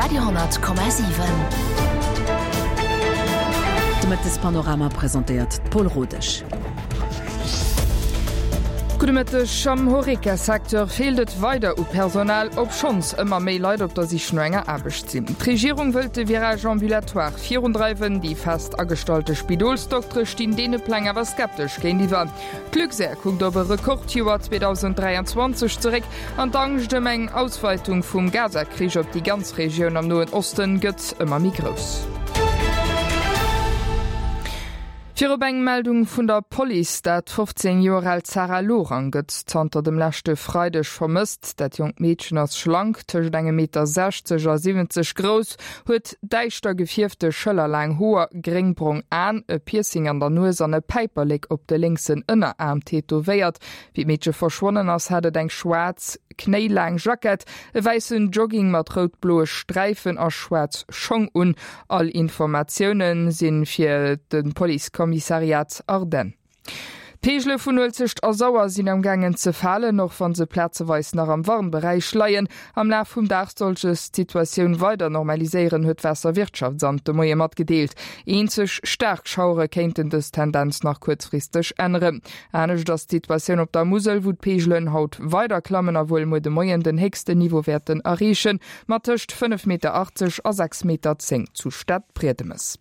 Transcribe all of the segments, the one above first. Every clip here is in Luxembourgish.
Radio 10,7. De Mëttespanorama presentéiert d'Paul Rodesch. Gudde Mëtteg. Am Horeca-Secteur feelt et weider u Personal, obschonns ëmmer méi Leit op der Sich no enger Aarbecht sinn. D'Regierung wëllt de Virage ambulatoire virundreiwen. Déi fest agestallte Spidolsdoktere stinn deene Pläng awer skeptesch géintiwwer. D'Luxair kuckt op e Rekordjoer 2023 zeréck an d'Angscht ëm eng Ausweitung vum Gaza-Krich op déi ganz Regioun am Noen Osten gëtt ëmmer méi grouss. Virop eng Meldung vun der Police, Dat 15 Joer aalt Sarah Lorang gëtt zanter dem leschte Freideg vermësst. Dat jonkt Meedchen ass schlank, tëscht engem Meter 60 a 70 grouss, huet däischter gefierfte schëllerlaang Hoer, gréngbrong Aen, e Piercing an der Nues an e Päiperlek op de lénksen Ënneraarm tätowéiert. Wéi d'Meedche verschwonnen ass, hat et eng schwaarz, knéilaang Jackett, e wäissen Jogging mat rout-bloe Sträifen a schwaarz Schong un. All Informatioune si fir de Policekommissariat Ardennes. D'Peegele vun Uelzecht a Sauer sinn am gaangen ze falen, och wa se plazeweis nach am Warnberäich leien. Am Laf vum Dag soll sech d'Situatioun weider normaliséieren, huet d'Waasserwirtschaftsamt de Moie matgedeelt. Eenzeg staark Schauere kéinten dës Tendenz nach kuerzfristeg änneren. Anescht ass d'Situatioun op der Musel, wou d'Peegelen haut weider klammen a wuel muer de Moien den héchsten Niveau wäerten erreechen, mat tëscht 5,80 Meter a 6,10 Meter zu Stadbriedemes.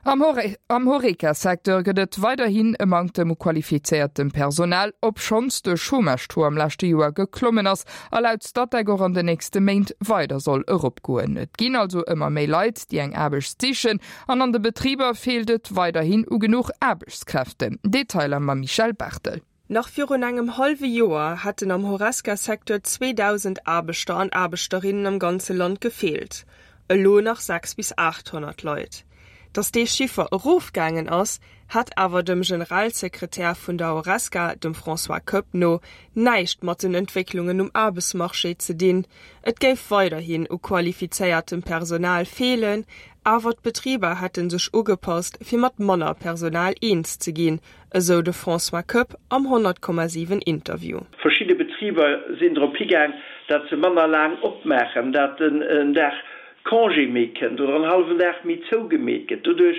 Am Horeca-Secteur gëtt et weiderhin e Manktem u qualifizéiertem Personal, obschonns de Chômage-Taux am leschte Joer geklommen ass a laut Statec och an den nächste Méint weider soll eropgoen. Et ginn also ëmmer méi Leit, déi eng Aarbecht sichen an an de Betriber feelt et weiderhin u genuch Aarbechtskräften. Detailer mam Michèle Barthel. Nach virun engem hallwe Joer hätten am Horesca-Secteur 2.000 Aarbechter an Aarbechterinnen am ganze Land gefeelt, elo nach 6 bis 800 Leit. Datt dee Chiffer erofgaangen ass, hätt awer dem Generalsekretär vun der Horesca, dem François Koepp no, näischt mat den Entwécklungen um Aarbechtsmarché ze dinn. Et géif weiderhin u qualifizéiertem Personal feelen, awer d'Betriber hätte sech ugepasst, fir mat manner Personal eens ze ginn, esou de François Koepp am 100,7 Interview. Verschidde Betriber sinn drop higaang, dat se manner laang opmaachen, dat en Dag Congé méi kënnt oder en hallwen Dag méi zougemeet gëtt. Doduerch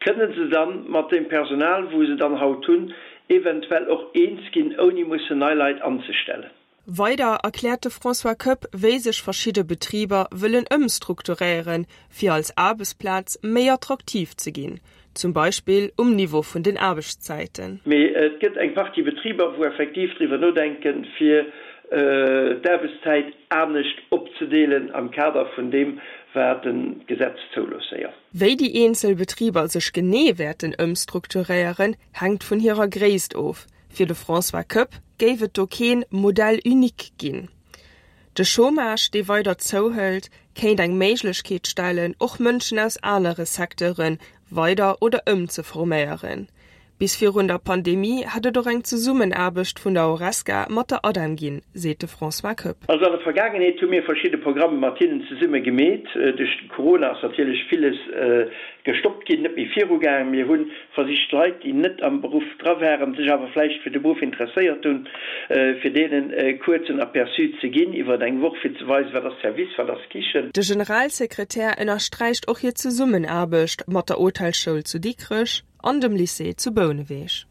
kënne se dann mat deem Personal, wou se dann haut hunn, eventuell och eens ginn, ouni mussen nei Leit anzestellen. Weider erkläert de François Koepp, wéi sech verschidde Betriber wëllen ëmstrukturéieren, fir als Aarbechtsplaz méi attraktiv ze ginn, zum Beispill um Niveau vun den Aarbechtszäiten. Mee et gëtt eng Partie Betriber, wou effektiv driwwer nodenken, fir d'Aarbechtszäit anescht opzedeelen am Kader vun deem, wat d'Gesetz zoulooss, jo. Wéi déi eenzel Betriber sech genee wäerten ëmstrukturéieren, hänkt vun hirer Gréisst of. Fir de François Koepp géif et do keen Modèle unique ginn. De Chômage, dee weider zouhëlt, kéint eng Méiglechkeet stellen, och Mënschen aus anere Secteure weider oder ëmzeforméieren. Bis virun der Pandemie hätt et och eng Zesummenaarbecht vun der Horesca mat der ADEM ginn, seet de François Koepp. Also an der Vergaangenheet hu mir verschidde Programme mat hinnen zesumme gemeet. Duerch de Corona ass natierlech villes gestoppt ginn, net méi virugaangen. Mir hu versicht Leit, déi net am Beruff dra waren, sech awer vläicht fir de Beruff interesséiert hunn, fir deenen e kuerzen Aperçu ze ginn iwwer eng Woch, fir ze weisen, wat ass Service, wat ass Kichen. De Generalsekretär ënnersträicht och hir Zesummenaarbecht mat der Hotelsschoul zu Dikrech an dem Lycée zu Bouneweg.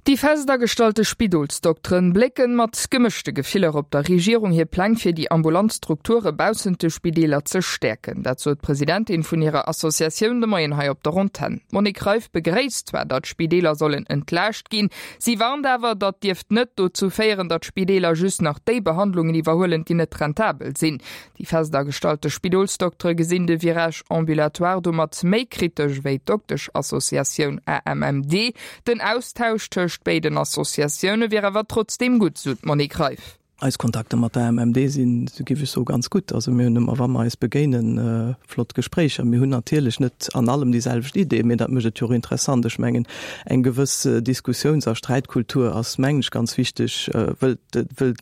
Déi fest agestallte Spidolsdokteren blécken mat gemëschte Gefiller op der Regierung hir Pläng fir déi ambulant Strukture baussent de Spideeler ze stäerken. Dat sot d'Presidentin vun hirer Associatioun de Moien hei op der Antenn. D'Monique Reiff begréisst zwar, datt d'Spideeler sollen entlaascht ginn, si warnt awer, datt dierft net dozou féieren, datt d'Spideeler just nach déi Behandlungen iwwerhuelen, déi net rentabel sinn. Déi fest agestallte Spidolsdoktere gesinn de Virage ambulatoire domat méi kritesch wéi d'Dokteschassociatioun AMMD. Den Austausch tëscht béiden Associatioune wier awer trotzdeem gutt, sou d'Monique Reiff. Eis Kontakter mat der AMMD sinn, sou géif ech soen, ganz gutt. Also mir hunn ëmmer, wa mer eis begéinen, flott Gespréicher. Mir hunn natierlech net an allem déi selwecht Idee, mee dat mécht et jo och interessant. Ech mengen, eng gewëss Diskussiouns a Sträitkultur ass, mengen ech, ganz wichteg, wëll, wëll,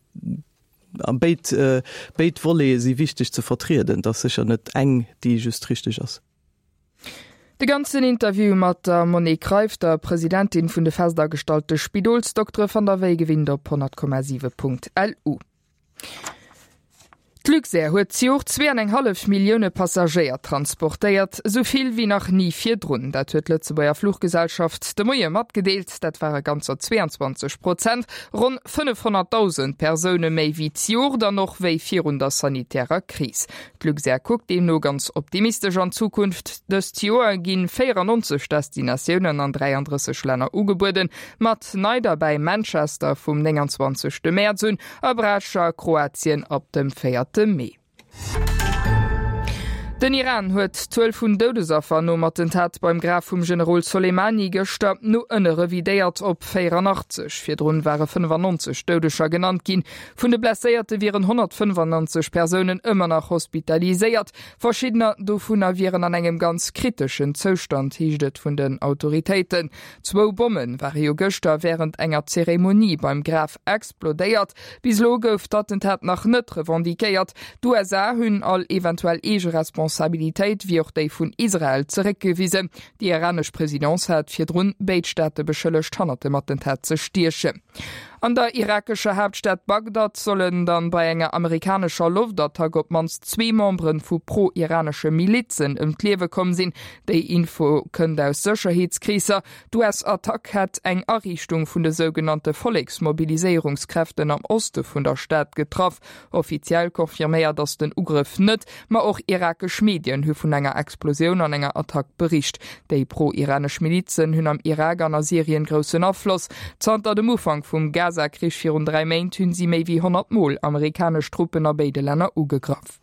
A béid, béid Volete si wichteg ze vertrieden. Et ass sécher net eng, déi just richteg ass. De ganzen Interview mat der Monique Reiff, der Presidentin vun de festagestallte Spidolsdoktere, fannt der wéi gewinnt op 100,7.lu. D'Luxair huet zejoert 2,5 Millioune Passagéier transportéiert, esou vill wéi nach ni virdrun. Dat huet d'Lëtzebuerger Fluchgesellschaft de Moie matgedeelt. Dat ware ganzer 22 Prozent, ronn 500.000 Persoune méi wéi zejoert an och wéi virun der sanitärer Kris. D'Luxair kuckt deemno ganz optimistesch an d'Zukunft. Dëst Joer gi 94 Destinatiounen an 33 Länner ugebueden, mat nei derbäi Manchester vum 29 Mäerz un a Brač a Kroatien ab dem 4 Mee. Den Iran huet d'Zuel vun Doudesaffer nom Attentat beim Graf vum Generol Soleimani gëschter no ënne revidéiert op 84. Virdrun ware 95 Doudeger genannt ginn. Vun de Blesséierte wieren 195 Persounen ëmmer nach hospitaliséiert. Verschiddener dovunner wieren an engem ganz kriteschen Zoustand, heescht et vun den Autoritéiten. Zwou Bomme ware jo gëschter wärend enger Zeremonie beim Graf explodéiert. Bis elo gouf d'Attentat nach net revendiquéiert. D'USA hunn all eventuell eege Responsabilitéit, wéi och déi vun Israel, zeréckgewisen. Déi iranesch Presidence hat virdrun béid Staate beschëllegt, hannert dem Attentat ze stiechen. An der irakescher Haaptstad Bagdad sollen dann bei enger amerikanescher Loftattack op d'mannst zwee Membere vu pro-iranesche Milizen ëm d'Liewe komm sinn. Déi Info kënnt aus Sécherheetskreesser. D'US-Attack hätt eng Ariichtung vun de sougenannte Volleksmobiliséierungskräften am Oste vun der Stad getraff. Offiziell confirméiert ass den Ugrëff net, ma och irakesch Medien hu vun enger Explosioun an enger Attack bericht. Déi pro-iranesch Milizen hunn am Irak an a Syrien groussen Afloss. Zanter dem Ufank vum Gaza-Krich virun 3 Méint hunn si méi wéi 100 Mol amerikanesch Truppen a béide Länner ugegraff.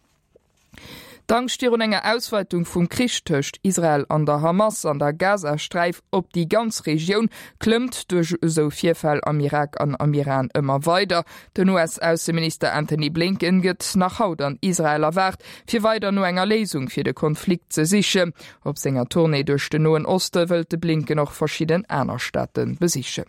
D'Angscht virun enger Ausweitung vum Krich tëscht Israel an der Hamas an der Gazasträif op déi ganz Regioun klëmmt duerch esou Virfäll am Irak an am Iran ëmmer weider. Den US-Ausseminister Antony Blinken gëtt nach haut an Israel erwaart, fir weider no enger Léisung fir de Konflikt ze sichen. Op senger Tournée duerch den Noen Oste wëllt de Blinken och verschidden aner Staate besichen.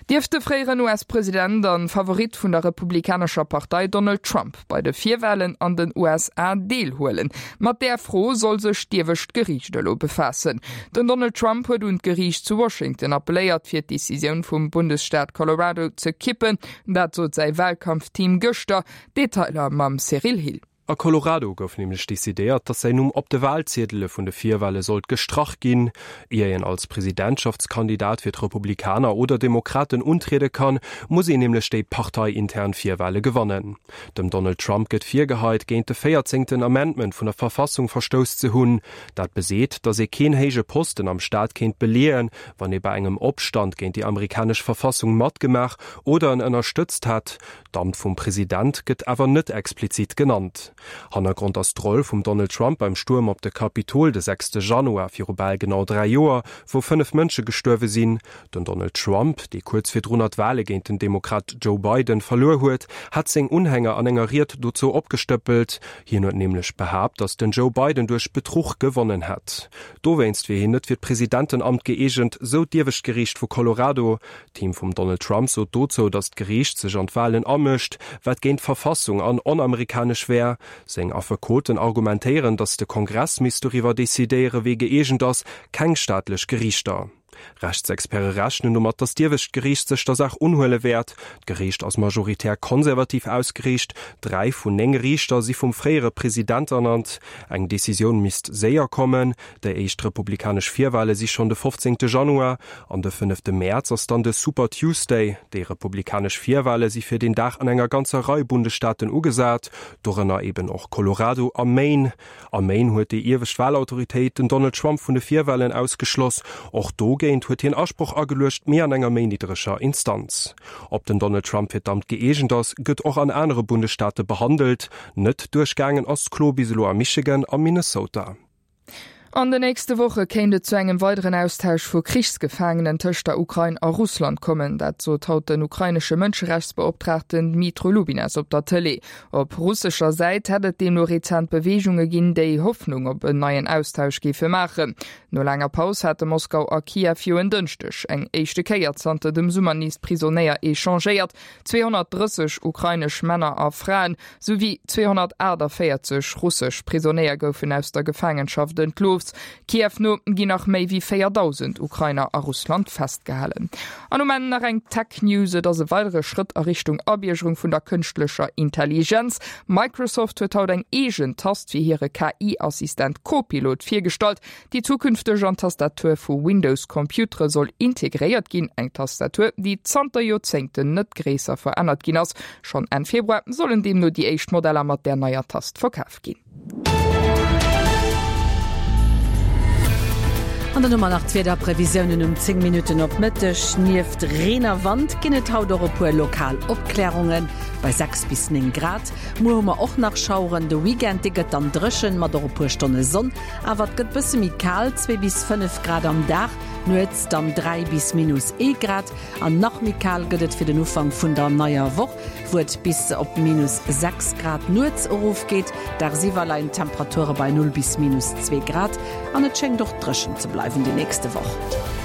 Dierf de fréieren US-President an Favorit vun der republikanescher Partei Donald Trump bei de Virwalen an den USA deelhuelen? Mat där Fro soll sech d'iewescht Geriicht elo befaassen. Den Donald Trump huet un d'Geriicht zu Washington appelléiert, fir d'Decisioun vum Bundesstaat Colorado ze kippen. Dat sot säi Walkampfteam gëschter. Detailer mam Cyril Hill. A Colorado gouf nämlech decidéiert, datt säin Numm op de Walziedele vun de Virwale sollt gestrach ginn. Ier een als Presidentschaftskandidat fir d'Republikaner oder Demokraten untriede kann, muss een nämlech déi parteiintern Virwale gewannen. Dem Donald Trump gëtt virgeheit, géint de véierzéngten Amendment vun der Verfassung verstouss ze hunn. Dat beseet, datt ee keen héije Posten am Staat kéint beleeën, wann ee bei engem Opstand géint déi amerikanesch Verfassung matgemaach oder en ënnerstëtzt hätt. D'Amt vum President gëtt awer net explizit genannt. Hannergrond ass d'Roll vum Donald Trump beim Stuerm op de Kapitol de sechste Januar viru bal genau 3 Joer, wou 5 Mënsche gestuerwe sinn. Den Donald Trump, dee kuerz virdrunner d'Wale géint den Demokrat Joe Biden verluer huet, hat seng Unhänger an enger Ried dozou opgestëppelt. Hien huet nämlech behaapt, datt den Joe Biden duerch Betruch gewonnen hätt. Dowéinst wier hien net fir d'Presidentenamt gëeegent, sou d'iewescht Geriicht vu Colorado. D'Team vum Donald Trump sot dozou, datt d'Geriicht sech an d'Walen amëscht, wat géint d'Verfassung an onamerikanesch wär. Seng Affekoten argumentéieren, datt de Kongress misst doriwwer decidéiere wee gëeegent ass, keng staatlech Geriichter. Rechtsexperte rechnen domat, datt d'iewescht Geriicht sech der Saach unhuele wäert. D'Geriicht ass majoritär konservativ ausgeriicht, 3 vun 9 Riichter si vum fréiere President ernannt. Eng Decisioun misst séier kommen. Déi éischt republikanesch Virwale si schonn de 15 Januar an de fënnefte Mäerz ass dann de Super Tuesday. Déi republikanesch Virwale si fir deen Dag an enger ganzer Rei Bundesstaaten ugesat, dorënner eben och Colorado a Maine. A Maine huet déi iewescht Walautoritéit den Donald Trump vun de Virwalen ausgeschloss. Och dogéint huet hien Asproch ageluecht, mee an enger méi niddreger Instanz. Ob den Donald Trump fir d'Amt gëeegent ass, gëtt och an anere Bundesstaate behandelt. Net duerchgaangen ass d'Klo bis elo a Michigan a Minnesota. An den nächste Woche kéint et zu engem weideren Austausch vu Krichsgefaangenen tëscht der Ukrain a Russland kommen. Dat sot haut den ukrainesche Mënscherechtsbeoptraagten Dmytro Lubinets op der Tëlee. Op russescher Säit hätt et deemno rezent Beweegunge ginn, déi Hoffnung op en neien Austausch géife maachen. No laanger Paus hate Moskau a Kiew jo en Dënschdeg eng éischte Kéier zanter dem Summer nees Prisonéier echangéiert. 230 ukrainesch Männer a Fraen, souwéi 248 russesch Prisonéier goufen aus der Gefaangenschaft entlooss. Opruffs. Kiew no ginn nach méi wéi 4.000 Ukrainer a Russland festgehalen. An um Enn nach eng Tech-News, Et ass e weidere Schrëtt a Richtung Abiergerung vun der kënschtlecher Intelligenz. Microsoft huet haut eng eegen Tast fir hire KI-Assistent Copilot virgestallt, déi zukünfteg an d'Tastatur vu Windows-Computere soll integréiert ginn. Eng Tastatur, déi zanter Joerzéngten net gréisser verännert ginn ass. Schonn Enn Februar sollen deemno déi éischt Modeller mat där neier Tast verkaf ginn. An dann hu mer nach d'Wiederprevisiounen um 10 Minutten op Mëtteg. Nieft Reen a Wand ginn et haut och e puer lokal Opklärunge bei 6 bis 9 Grad. Muer hu mer och nach Schaueren, de Weekend dee gëtt dann dréchen mat och e puer Stonne Sonn, awer et gëtt bësse méi kal, 2 bis 5 Grad am Dag, nuets dann 3 bis minus 1 Grad. An nach méi kal gëtt et fir den Ufank vun der neier Woch, wou et bis op minus 6 Grad nuets erofgeet. Dagsiwwer leien d'Temperature bei 0 bis minus 2 Grad an et schéngt och dréchen ze bleiwen déi nächste Woch.